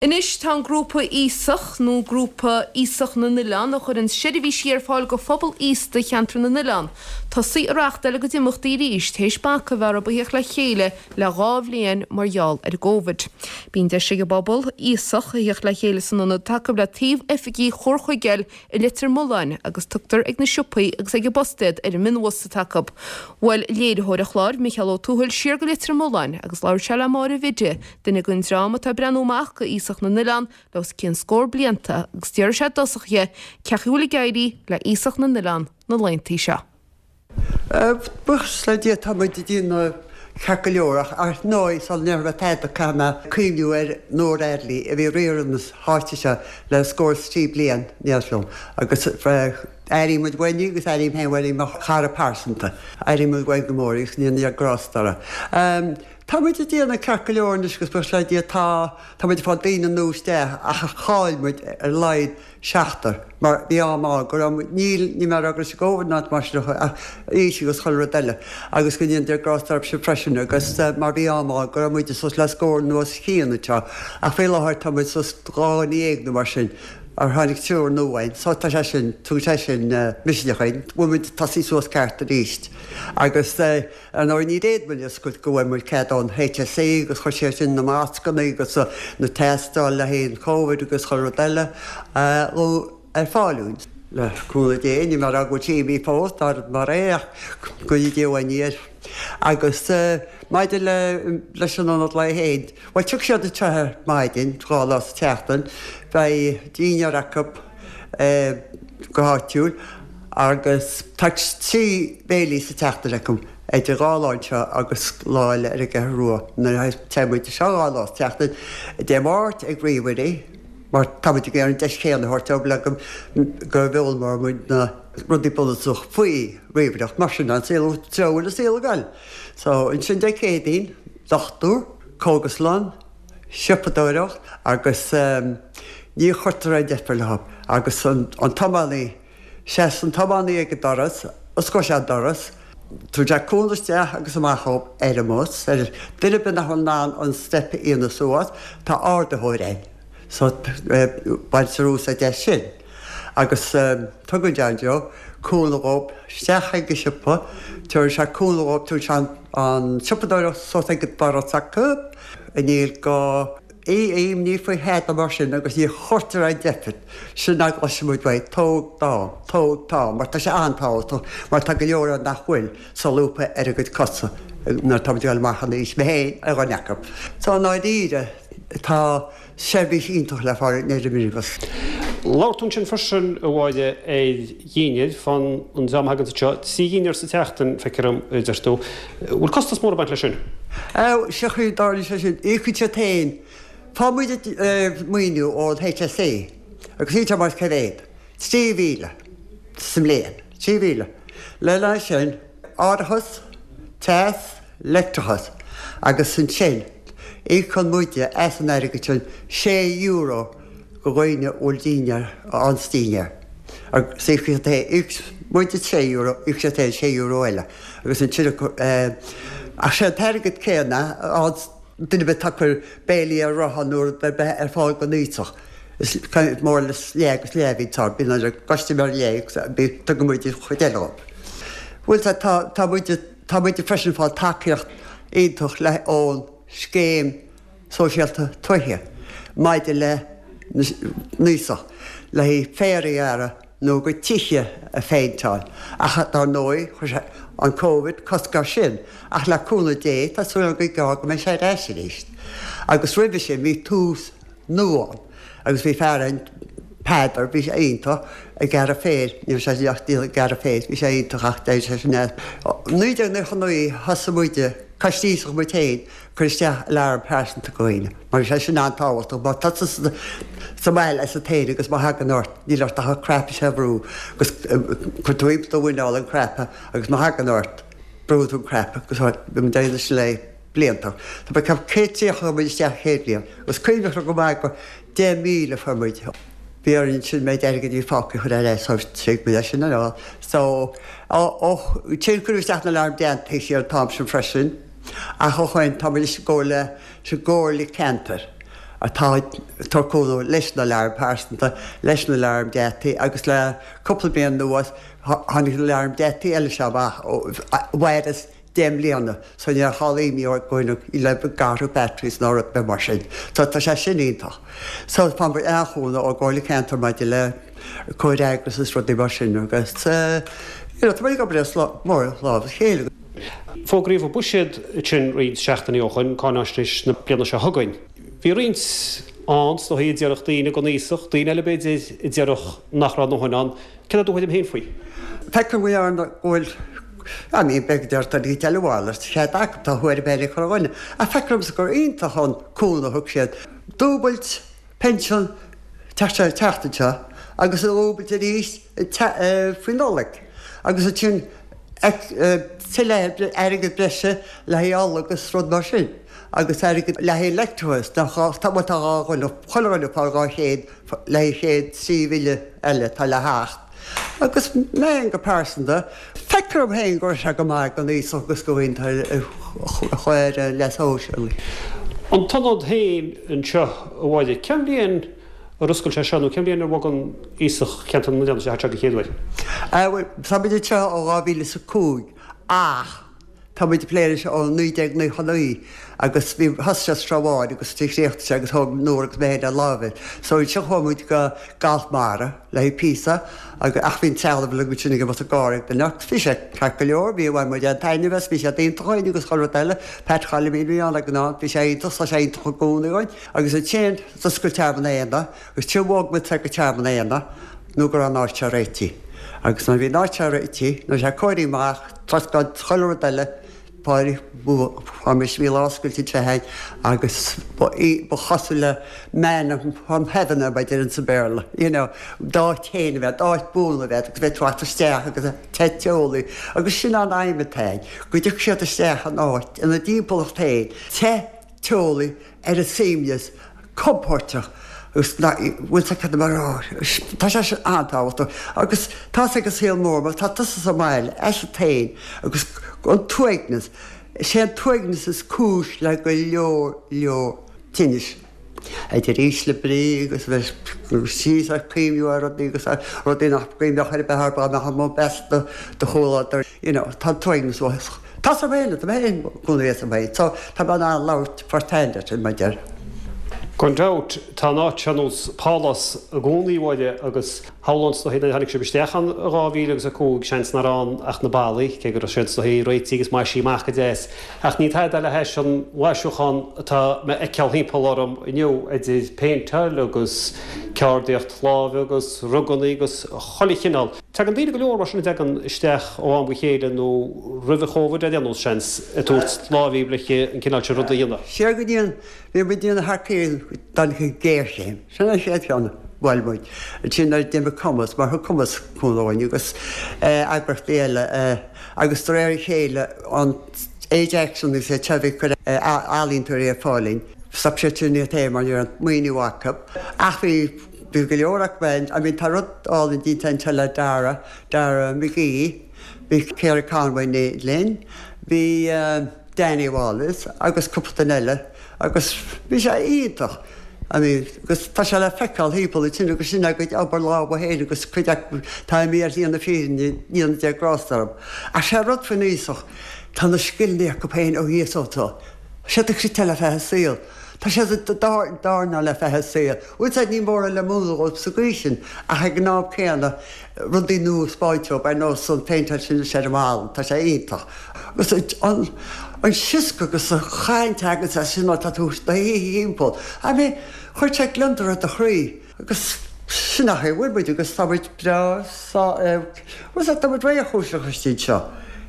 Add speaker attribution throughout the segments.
Speaker 1: Anois tá an grúpa Aosach, nó Grúpa Aosach na nOileán, a chuireann seirbhísí ar fáil go phobal aosta Cheantar na nOileán, tosaithe ag reáchtáil a gcuid imeachtaí arís théis bac a bheith orthu a theacht le chéile le 2 bhliain mar gheall ar an gCóivid. Bíonn deis ag an bpobal aosach a theacht le chéile san ionad atá acu le taobh oifigí Chomhar Chuigéil i Leitir Mealláin agus tugtar ag na siopaí agus ag an bpost iad ar an mionbhus atá acu. Bhuail léiritheoir an chláir, Micheál Ó Tuathail, siar go Leitir Mealláin agus labhair sé le Máire Bhiddy, duine den dream atá ag breathnú amach go Aosach na nOileán le os cionn scór blianta agus d'fhiafraigh sé i dtosach dhe cén chaoi a bhfuil ag éirí le Aosach na nOileán na laethanta seo.
Speaker 2: Buíochas le Dia tá muid ag déanamh ceart go leor ach ar ndóigh sula ndéarfaidh mé tada caithfidh mé cuimhniú ar Nóra Eardley a bhí ag riar na háite seo le scór is 3 bliain níos lú agus airím muid uainn í agus airím féin uainn í mar chara pearsanta. Airím muid uainn go mór í agus go ndéana Dia grásta uirthi. Tá muid ag déanamh ceart go leor anois agus buíochas le Dia tá tá muid ag fáil daoine nua isteach ach chaill muid ar a laghad seachtar, mar bhí am ann go raibh muid, níl, níl mé ag rá go raibh sé Covid ná mar sin ach aois agus chuile rud eile agus go ndéana Dia grásta orthu sin freisin agus mar bhí am ann go raibh muid suas le scór nó os cionn anseo ach faoi láthair tá muid suas 12 nó mar sin ar tháinig triúr nua againn so tá sé sin, tugann sé sin misneach dúinn, bhfuil muid ag tosaí suas ceart arís agus. Ar ndóigh ní fhéad muid oscailt go bhfuair muid cead ón HSE agus chuir siad sin na mascanna agus na tástáil le haghaidh an Covid agus chuile rud eile ar fáil dúinn. Le cúnamh Dé, níl mé ag rá go bhfuil sé imithe fós, dar mar é ach go ndéana Dia uainn í air. Agus maidir le leis an ionad lae féin, bhuel tiocfaidh siad anseo ar maidin, 2 lá sa tseachtain, beidh dinnéar acu go háitiúil agus tá 3 béilí sa tseachtain acu, idir 2 lá anseo agus lá eile ar an gCeathrú Rua. Nuair a téann muid anseo 2 lá sa tseachtain, Dé Máirt ag ríomhairí, mar tá muid ag iarraidh an deis chéanna a thabhairt dóibh le go go bhfoghlaimeoidh muid na rudaí bunúsach faoi ríomhaireacht, mar sin an saol, treo a bhfuil an saol ag goil. So ansin Dé Céadaoin, dochtúir, cógaslann, siopadóireacht agus ní chuirtear aon deifir leo agus an tiománaí, seasann an tiománaí ag an doras, osclóidh sé an doras, tugann sé cúnamh isteach agus amach dhóibh ar an mbus, ar duine ar bith nach bhfuil in ann an step a dhéanamh suas, tá ardaitheoir ann so baintear úsáid as sin agus tugann John Joe cúnamh dhóibh isteach ag an siopa, tabharann sé cúnamh dhóibh, tugann sé an tsiopadóireacht suas ag an doras acu. Níl gá imní faoi thada mar sin agus ní chuirtear aon deifir sin a gcloiseann muid uaidh, tóg d'am, tóg t'am, mar tá sé an-tábhachtach mar tá go leor ann nach bhfuil solúbtha ar a gcuid cosa nuair atá muid ag dul amach in aois, mé féin ar dhuine acu. So i ndáiríre tá seirbhís iontach le fáil in Neire Minibus.
Speaker 3: Labhair tú ansin freisin, a Mháire, ar dhinnéir fán an dream a thaganns anseo. 3 dhinnéar sa tseachtain, feictear dom, a deir tú. Bhfuil costas mór ag baint leis sin?
Speaker 2: Sé an chaoi a dtarlaíonn sé sin, íocann siad féin. Faigheann muid maoiniú ón HSE agus níl sé mar cé mhéad? 3,000 sa mbliain. 3,000. Lena aghaidh sin, árachas, teas, leictreachas agus ansin íocann muide as an airgead sin €6 go dhaoine a bhfuil dinnéar ann sa dinnéar agus íocfaidh siad féin, íoc muide €6, íocfaidh siad féin €6 eile agus ansin ach sé an t-airgead céanna ann duine ar bith atá ag cur béilí ar rothán nó rud ar bith ar fáil don aosach is more or less leath agus leath a bhíonn ann, bíonn an custaiméir leath agus tugann muid an chuid eile dhóibh. Bhuel tá tá muid Tá muid freisin ag fáil tacaíocht iontach le ón Scéim Sóisialta Tuaithe maidir le n-aosach le haghaidh féar a ghearradh nó a gcuid tithe a phéinteáil ach dar ndóigh chuir sé an Covid cosc air sin ach le cúnamh Dé tá súil agam go gearr go mbeidh sé ar ais arís. Agus roimhe sin bhí Tús Nua ann agus bhí fear ann Peadar, bhí sé iontach ag gearradh féir, ní raibh sé ach ag gearradh féir, bhí sé iontach ach d'éirigh sé sin as. 1999 thosaigh muide, Coiste Aosach muid féin, cur isteach alarm pearsanta do dhaoine, mar bhí sé sin an-tábhachtach, má tá tusa sa mbaile asat féin agus má thagann ort, níl ort ach an cnaipe seo a bhrú agus cuir tú thimpeall do mhuineál an cnaipe agus má thagann ort, brúann tú an cnaipe agus bhí muid ag déanamh sin le blianta. Tá mé ag ceapadh 130 a chuir muid isteach an chéad bhliain agus cuimhneach liom go maith go 10,000 a fuair muid. Bhí orainn ansin méid airgid a bhí fágtha a chur ar ais so thuig muid é sin ar fad. So ó sin cuireadh isteach na aláraim déanta siar an t-am sin freisin ach ó shoin tá muid i gcomhairle sa gcomhairle ceantair. atá ag tabhairt cúnamh leis na aláraim pearsanta, leis na aláraim geataí agus le cúpla bliain anuas tháinig na aláraim geataí eile seo amach a mhaireas 10 mbliana so níl aon imní orainn le athrú batteries ná rud ar bith mar sin. So tá sé sin iontach. So faigheann muid an-chúnamh ón gComhairle Ceantair maidir le comhfhreagras is rudaí mar sin agus you know tá muid ag obair as mór lámh a chéile.
Speaker 3: Fógraíodh an buiséad ansin roinnt seachtainí ó shoin, cáináisnéis na bliana seo chugainn. Bhí roinnt ann, is dóigh, a déarfadh daoine don aosach, daoine eile b'fhéidir a déarfadh nach raibh a ndóthain ann.
Speaker 2: Céard é do thuairim féin faoi? Feicim go ndearna go bhfuil I mean b'fhéidir go deir daoine eile a mhalairt, cead acu, tá thuairim féin ag chuile dhuine. Ach feictear domsa gur iontach an cúnamh a thug siad. Dúbailt pinsean an tseachtain seo agus a dhúbailt arís faoi Nollaig agus ansin tuilleadh airgead breise le haghaidh ola agus rud mar sin agus airgead le haghaidh leictreachas tá bhuel tá dhá dhuine, chuile dhuine ag fáil 200 le haghaidh chéad trí bhille eile atá le theacht. Agus mé féin go pearsanta, feictear dom féin go raibh sé go maith don aosach agus do dhaoine atá ar an leas shóisialaigh.
Speaker 3: An t-ionad féin anseo a Mháire, cén bhliain ar oscail sé seo nó cén bhliain ar bhog an Aosach Cheantar na nOileán isteach anseo den chéad uair?
Speaker 2: Bhuel, tá muid anseo ó 2005 ach Tá muid ag plé leis ó 1999 agus bhí, thosaigh sé sa Srath Bháin agus chríochnaigh sé agus thóg Nóra agus mé féin ar láimh é. So ansin chuaigh muid go Galf Mara le haghaidh píosa agus, ach bhí an trealamh uilig ansin ag imeacht ag gáire ag duine ach bhí sé ceart go leor, bhí, bhain muid an-taitneamh as, bhí sé iontach againn agus chuile rud eile. Pat Choilimín a bhí ann ag an am, bhí sé iontach, tá sé iontach i gcónaí againn. Agus ansin d'oscail Tearmann Éanna agus ansin bhog muid go Tearmann Éanna nó go raibh an áit seo réitithe. Agus nuair a bhí an áit seo réitithe, nuair a bhí sé cóirithe amach, Troscán chuile rud eile, bhí lá oscailte anseo againn agus ba í, ba chosúil le manna from heaven é mar a deireann sa Bhéarla, you know, d'áit féin a bheith, d'áit buan a bheith agus bheith ag teacht isteach agus te teolaí agus sin an aidhm atá againn, go dtiocfaidh siad isteach in áit ina dtimpeallacht féin, te, teolaí, ar a suaimhneas, compóirteach agus bhfuil sé cad mar tá sé sin an-tábhachtach agus tá sé ag an saol mór mar tá tusa sa mbaile asat féin agus an t-uaigneas, is é an t-uaigneas is cúis le go leor leor tinnis. Idir ísle brí agus a bheith síos ag cuimhniú ar rudaí agus ar rudaí nach gcuimhneodh ar bith orthu dá mbeadh amuigh as do chomhluadar, you know, tá an t-uaigneas uafásach. Tá sa bhaile, tá mé féin i gcónaí sa bhaile, so tá mé in ann labhairt first hand ar sin, mar deir.
Speaker 3: Gan dabht, tá an áit seo ar nós pálás i gcónaí, a Mháire, agus shamhlóinn is dóichí nuair a tháinig sibh isteach ann i 2000 agus 5, seans nach raibh ann ach na ballaí, cé go raibh siad is dóichí réitithe agus maisithe amach go deas. Ach ní tada le hais an mhaisiúchán atá mé a fheiceáil thimpeall orm inniu, idir péinteáil agus ceardaíocht láimhe agus ruganna agus chuile chineál. Tagann daoine go leor mar sin a dtagann isteach ó am go chéile nó roimh an Chóvid ar aon nós, seans, ag tabhairt láimh leis an cineál sin ruda a dhéanamh.
Speaker 2: Siar go dtí an, bhí muid ag déanamh thar cionn don ghéarchéim. Sin an chéad cheann a bhuail muid. Ansin nuair a d'imigh Cumas, mar thug Cumas cúnamh dúinn agus eagraíochtaí eile agus de réir a chéile an Age Action agus iad seo a bhí ag cur ealaíontóirí ar fáil dúinn, stop siad sin iad féin mar ní raibh an maoiniú acu. Ach bhí Bhí go leor acu ann. I mean tá rud álainn déanta anseo le Dara, Dara McGee, bhí Ciara Conway linn, bhí Danny Wallace agus cúpla duine eile agus bhí sé iontach. I mean agus tá sé le feiceáil thimpeall ansin agus sin a gcuid obair lámha féin agus cuid acu tá imithe ar shlí na fírinne, ndéana Dia grásta orthu. Ach sé rud faoin aosach, tá na scileanna acu féin ó thíos ó tá siad ag cniotáil le feadh a saol. Tá siad ag dornáil le feadh a saoil. Bhuel sea, ní mórán le múineadh dóibh sa gcaoi sin, ach ag an am céanna, rudaí nua a 'spáint dóibh, ar nós an phéinteáil sin anois ar an mballa, tá sé iontach. Agus an sioscadh agus an chaint a thaganns as sin nuair atá tú do shuí thimpeall, I mean, chuir sé gliondar ar do chroí. Agus sin an chaoi a bhfuil muid agus tá muid breá sá, bhuel sea, tá muid réchúiseach istigh anseo.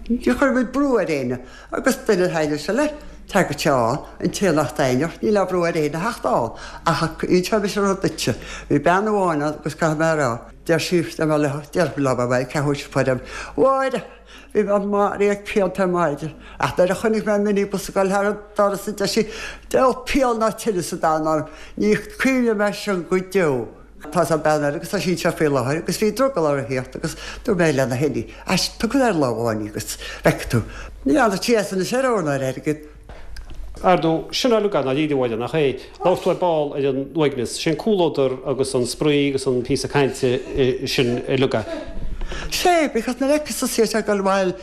Speaker 2: Ní chuireann muid brú ar éinne. Agus duine a thaitneodh sé leis, tagadh sé ann, an té nach dtaitneodh, níl aon bhrú ar éinne a theacht ann. Ach inseoidh mise rud duitse, bhí bean amháin ann agus caithfidh mé a rá, deir sí, deir mé léi, deir mé léi, ceathrú théis a Mháire, bhí mé maraithe ag pianta ar maidin, ach nuair a chonaic mé an minibus ag dul thar an doras, deir sí, diabhal pian ná tinneas sa domhan orm, ní chuimhneoidh mé air sin go deo. Tá an bean eile agus tá sí anseo faoi láthair agus bhí drogall uirthi theacht agus dúirt mé lena hinní, Ais, tabhair ar lámh amháin í agus feicfidh tú. Ní fhanfaidh sí as anois ar ór ná ar airgead.
Speaker 3: Ar ndóigh, sin uilig i ndáiríre, a Mháire, nach é? Labhair tú ar ball ar an uaigneas. Sé an comhluadar agus an spraoi agus an píosa cainte sin uilig é.
Speaker 2: Sé, because nuair a fheiceas tusa iad ag dul abhaile,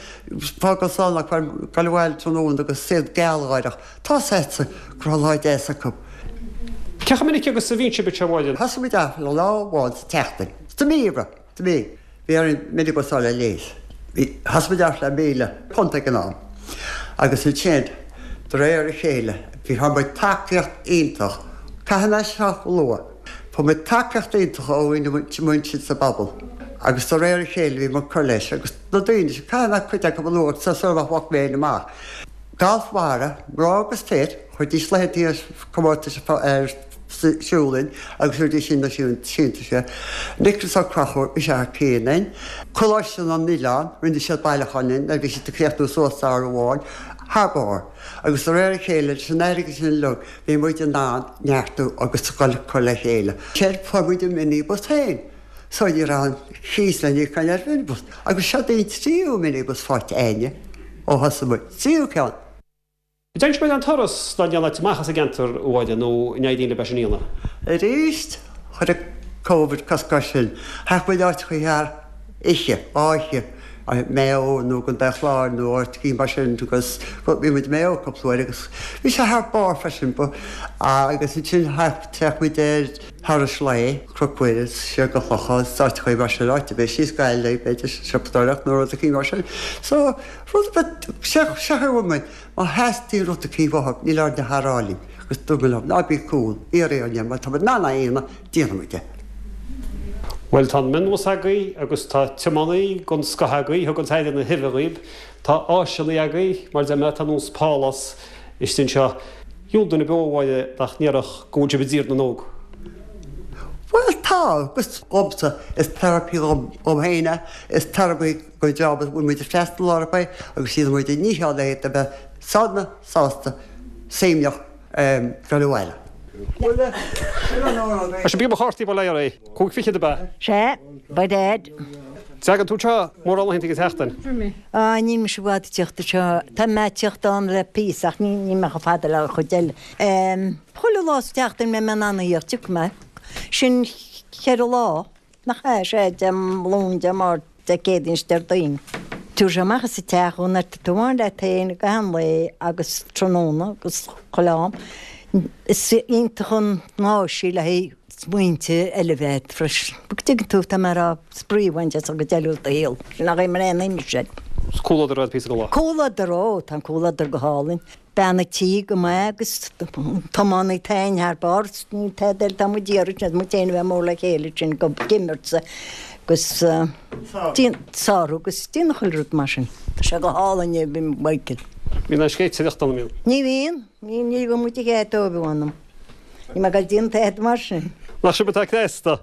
Speaker 2: fágáil slán acu, ag dul abhaile tráthnóna agus iad gealgháireach, tá 's agatsa go raibh lá deas acu.
Speaker 3: Cé chomh minic agus a bhíonn sibh anseo, a Mháire?
Speaker 2: Thosaigh muid off le lá amháin sa tseachtain. Sa mí, a Sa mí. Bhí orainn minibus a fháil le léas. Bhí, thosaigh muid off le £1,000 ag an am. Agus ansin, de réir a chéile, bhí, fuair muid tacaíocht iontach, caithfidh mé seo a lua, fuair muid tacaíocht iontach ó dhaoine muintir sa bpobal. Agus de réir a chéile bhí muid ag cur leis. Agus na daoine sin, caithfidh mé cuid acu a lua sula bhfágfaidh mé féin amach. Galf Mhara, mná agus fir, chuiridís laethanta comórtais ar siúl linn agus chuiridís sin na síntiúis. Nicholas Ó Conchúir, bhí sé thar cionn linn. Coláiste na nOileán, rinne siad bailiúchán linn nuair a bhí siad ag críochnú suas samhradh amháin, thar barr. Agus de réir a chéile, leis an airgead sin uilig, bhí muid in ann neartú agus dul cur le chéile. Séard, fuair muid an minibus féin. So ní raibh an cíos le n-íoc againn ar mhinibus. Agus seo í an tríú minibus faighte againne ó thosaigh muid. Tríú ceann.
Speaker 3: Dtéann sibh ar aon turas dá ndéanfaidh amach as an gceantar, a Mháire, nó an éiríonn libh é sin a dhéanamh?
Speaker 2: Arís, chuir an Covid cosc air sin. Théadh muid áiteachaí thar oíche, dhá oíche, Maigh Eo nó i gContae an Chláir nó áiteachaí mar sin agus bhí muid i Maigh Eo cúpla uair agus bhí sé thar barr freisin. Agus ansin théadh muid ar thurais lae, Cnoc Mhuire, siar go Clochán, áiteachaí mar sin, áit ar bith, síos Gaillimh, b'fhéidir, siopadóireacht nó rud eicínt mar sin. So, rud ar bith, seo a bhfuil muid. Má theastaíonn rud eicínt uathu, níl orainn ach a rá linn, agus dúirt mé leo, ná bí cúl, iarr orainn, má tá muid in ann é a dhéanamh, déanfaidh muid é.
Speaker 3: Bhuel, tá an minibus agaibh agus tá tiománaí den scoth agaibh, thug an tAire na huibhe dhaoib. Tá áiseanna agaibh, mar deir mé, tá nós pálás istigh anseo. Dhiabhal duine beo, a Mháire, nach ndéarfadh go bhfuil sibh i dTír na nÓg.
Speaker 2: Bhuel, tá, agus dhomsa, is therapy dhom féin é, is therapy don dream a bhfuil muid ag freastal orthu é agus déanann muid ár ndícheall le iad a bheith sona, sásta, suaimhneach dul abhaile.
Speaker 3: Tá sé beag mo chártaí bail ó Dhia oraibh. 5 fichead ab ea?
Speaker 4: Sea, by dad.
Speaker 3: Tagann tú anseo mórán laethanta den tseachtain?
Speaker 4: Á, níl mise i bhfad ag tíocht anseo. Tá mé ag tíocht ann le píosa ach níl mé chomh fada le an chuid eile. Chuile lá sa tseachtain mbeidh mé in ann a thíocht, tiocfaidh mé. Sin cheithre lá. Nach ea? Sea, Dé Luain, Dé Máirt, Dé Céadaoin is Déardaoin. Tabharfaidh sé amach as an teach thú nuair atá tú amháin leat féin i gcaitheamh an lae agus tráthnóna agus chuile am. Is iontach an áis í le haghaidh smaointe eile a bheith agat freisin. Go dtuigeann tú, tá mé a rá, spraoi a bhaint as an gcuid eile de do shaol. Sin nach é mar aon uime sin.
Speaker 3: Is comhluadar é píosa den lá.
Speaker 4: Comhluadar, ó, tá an comhluadar go hálainn. Bean a' tí go maith agus tiománaí táin thar barr, níl tada eile atá muid iarraidh, sin muid féin a bheith mór le chéile sin go imirt agus sárú agus déanamh chuile rud mar sin. Tá sé go hálainn é Michael.
Speaker 3: Bíonn an scéitireacht ann, an mbíonn?
Speaker 4: Ní bhíonn, ní ní bhíonn muid ag ag dóibh anam. Ní mé ag dul déanamh tada mar sin.
Speaker 3: Nach sibh atá cneasta?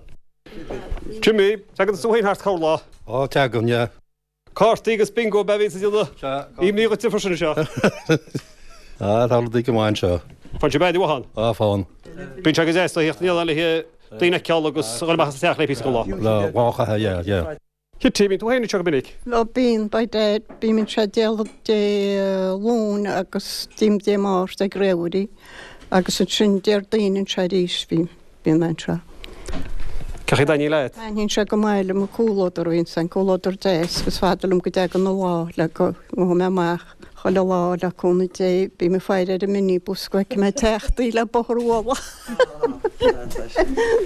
Speaker 3: Jimmy, tagann tú féin thart corrlá.
Speaker 5: Ó, tagann, yeah.
Speaker 3: Cártaí agus bingo ab ea a bhíonns ag déanamh imní dhuit freisin anseo.
Speaker 5: Ah, tá rudaí go maith anseo.
Speaker 3: Faigheann sibh aire mhaith ann.
Speaker 5: Ah, faigheann.
Speaker 3: Bíonn sé go deas a theacht in éineacht le daoine a fheiceáil agus a dhul amach as an teach le píosa den lá.
Speaker 5: Lá a chaitheamh, yeah, yeah.
Speaker 3: Kitty, bíonn tú féin anseo go minic?
Speaker 6: Ó bíonn, by dad. Bím anseo Dé Dé Luain agus bím Dé Máirt ag Réamhairí agus ansin Déardaoin anseo arís bím. Bíonn mé anseo.
Speaker 3: Cén chaoi a dtaitníonn leat?
Speaker 6: Taitníonn sé go maith liom an comhluadar a bhíonn ann, comhluadar deas agus fada liom go dtagann an lá le go ngabhfaidh mé amach chuile lá le cúnamh Dé. Bím ag faire ar an minibus go bhfeicfidh mé ag teacht í le bóthar a bhualadh.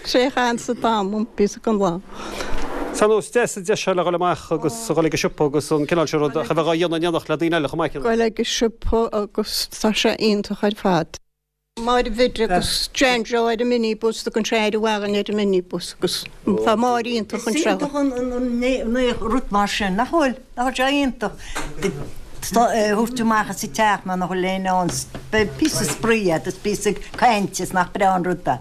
Speaker 6: Sé a chaitheann an t-am liom píosa den lá.
Speaker 3: Tá nós deas an deis seo le dhul amach agus a dhul ag an siopa agus an cineál sin rud ach a bheith á dhéanamh in éineacht le daoine eile chomh maith.
Speaker 6: Dhul ag an siopa agus tá sé iontach ar fad. Máire Bhid agus Jan Joe ar an minibus, tugann sé aire mhaith dhúinn ar an minibus agus tá Máire iontach
Speaker 4: anseo. Is iontach an rud mar sin, nach bhfuil? Nach bhfuil sé iontach thabhairt amach as an teach mar nach bhfuil éinne ann, beidh píosa spraoi agat is píosa cainte is nach breá an rud é.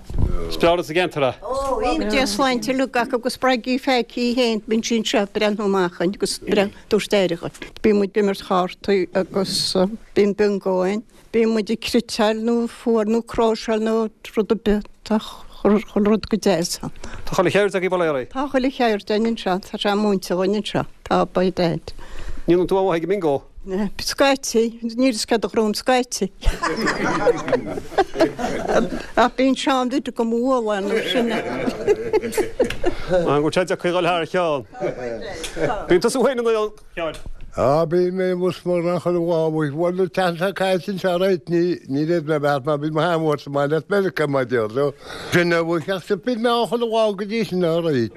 Speaker 3: Is breá rud sa gceantar é.
Speaker 4: Ó, iontach.
Speaker 6: Dia sláinte uilig acu agus Bridie Pheaicí féin, bíonn sí anseo ag breathnú amach againn agus tabhairt aire dhuinn. Bíonn muid ag imirt chártaí agus bíonn bingo ann. Bíonn muid ag cniotáil nó fuar nó cróiseáil nó rud ar bith. Tá chuile rud go deas ann.
Speaker 3: Tá chuile cheird agaibh bail ó Dhia oraibh.
Speaker 6: Tá chuile cheird againn anseo. Tá sé múinte dhúinn anseo. Tá, by dad.
Speaker 3: Ní dhéanann tú aon mhaith ag an mbingo?
Speaker 6: Scaití, níl fhios céard a ghnóim scaití. Ach bíonn Seán Bhiddy go mbualadh nó sin.
Speaker 3: An bhfuil sé deacair a dhul thar a cheann? Bíonn tusa féin in ann, Sheáin.
Speaker 7: Á, bíonn mé amuigh mar nach chuile lá uaidh. Bhuel, an tseachtain seo caite anseo right, ní, ní raibh mé beart mar bhí mo sheanmháthair sa mbaile as Meiriceá, mar a déarfá. Sin a bhfuil ach bíonn mé ann chuile lá go dtí sin, all right.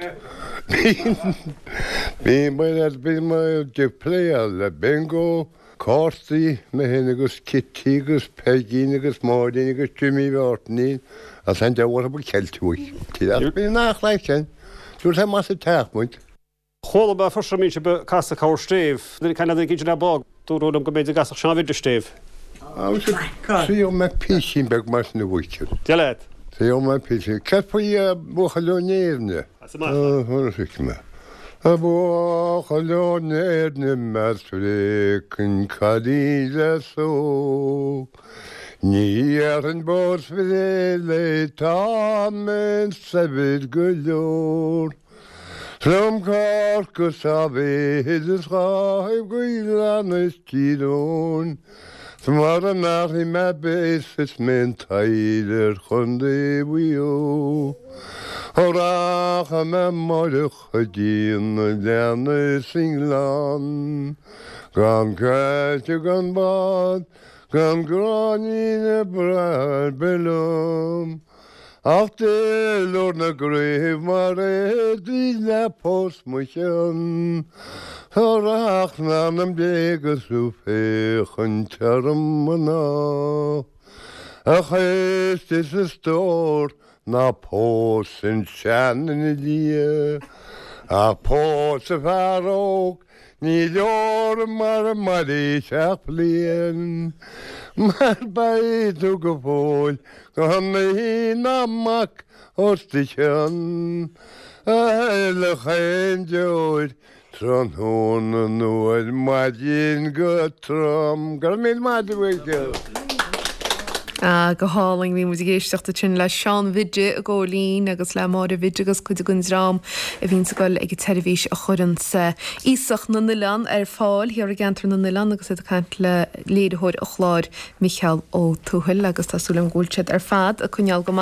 Speaker 7: Bíonn mé, bíonn mé ag pléáil le bingo, cártaí, mé féin agus Kitty agus Peigín agus Máirín agus Jimmy Mháirtín agus an diabhal orthu ag ceilt uaidh. Ach bíonn an-chraic ann. Dúirt sé más ag teach muid.
Speaker 3: Chuala mé freisin go mbíonn sibh ag casadh corr stéibh. Nuair a cailleadh an duine le bog, dúradh liom go mb'fhéidir go gcasfadh Seán Bhiddy stéibh.
Speaker 7: Triail mé písín beag mar sin a mhuintir.
Speaker 3: Dia leat.
Speaker 7: Triail mé písín. Céard faoi buachaill ó Néirne?
Speaker 3: As amach.
Speaker 7: Thuig mé. A bhuachaill ó Néirne más bhféiceann cailín le só Ní dhéarfainn pósfad léi tá mé saibhir go leor 'S liom Corca sa mhéid is ghabh go Oileán is Tír Eoghain 'S mara mbearfaidh mé béas is mé an taill ar Chontae Mhaigh Eo. Ó rachaidh mé amáireach go dtí an oileán is an gleann, gan caillte gan bád, gan gráinnín ag brath ar bith liom, ach duilliúr na gcraobh mar éadaí le pós mo chionn. Ó rachainn anam Dé agus tú féachaint orm mná, a chaoiste is a stór Ná pós an seanduine liath, ach pós an fear óg, ní leor mara mairfidh sé ach bliain, mar beidh tú go fóill gan iníon ná mac os do chionn, a shiolfadh aon deoir Tráthnóna nó ar maidin go trom. Go raibh míle maith agat.
Speaker 1: Ah, go hálainn. Bhí muid ag éisteacht ansin le Seán Bhiddy i gCóilín agus le Máire Bhiddy agus cuid den dream a bhíonns ag dul ag an tseirbhís a chuireanns Aosach na nOileán ar fáil thiar i gceantar na nOileán agus iad ag caint le léiritheoir an chláir, Micheál Ó Tuathail agus tá súil agam go bhfuil siad ar fad ag coinneáil go maith.